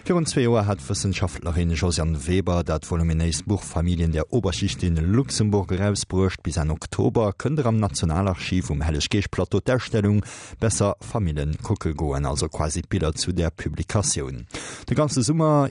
Virun zwee Joer hat d'Wëssenschaftlerin Josiane Weber dat voluminéist Buch Familien der Oberschicht in Luxemburg erausbruecht. Bis Enn Oktober kënnt der am Nationalarchiv um Helleg-Geescht-Plateau d'Ausstellung Besser Famillen kucke goen, also quasi d'Biller zu där Publikatioun. De ganze Summer.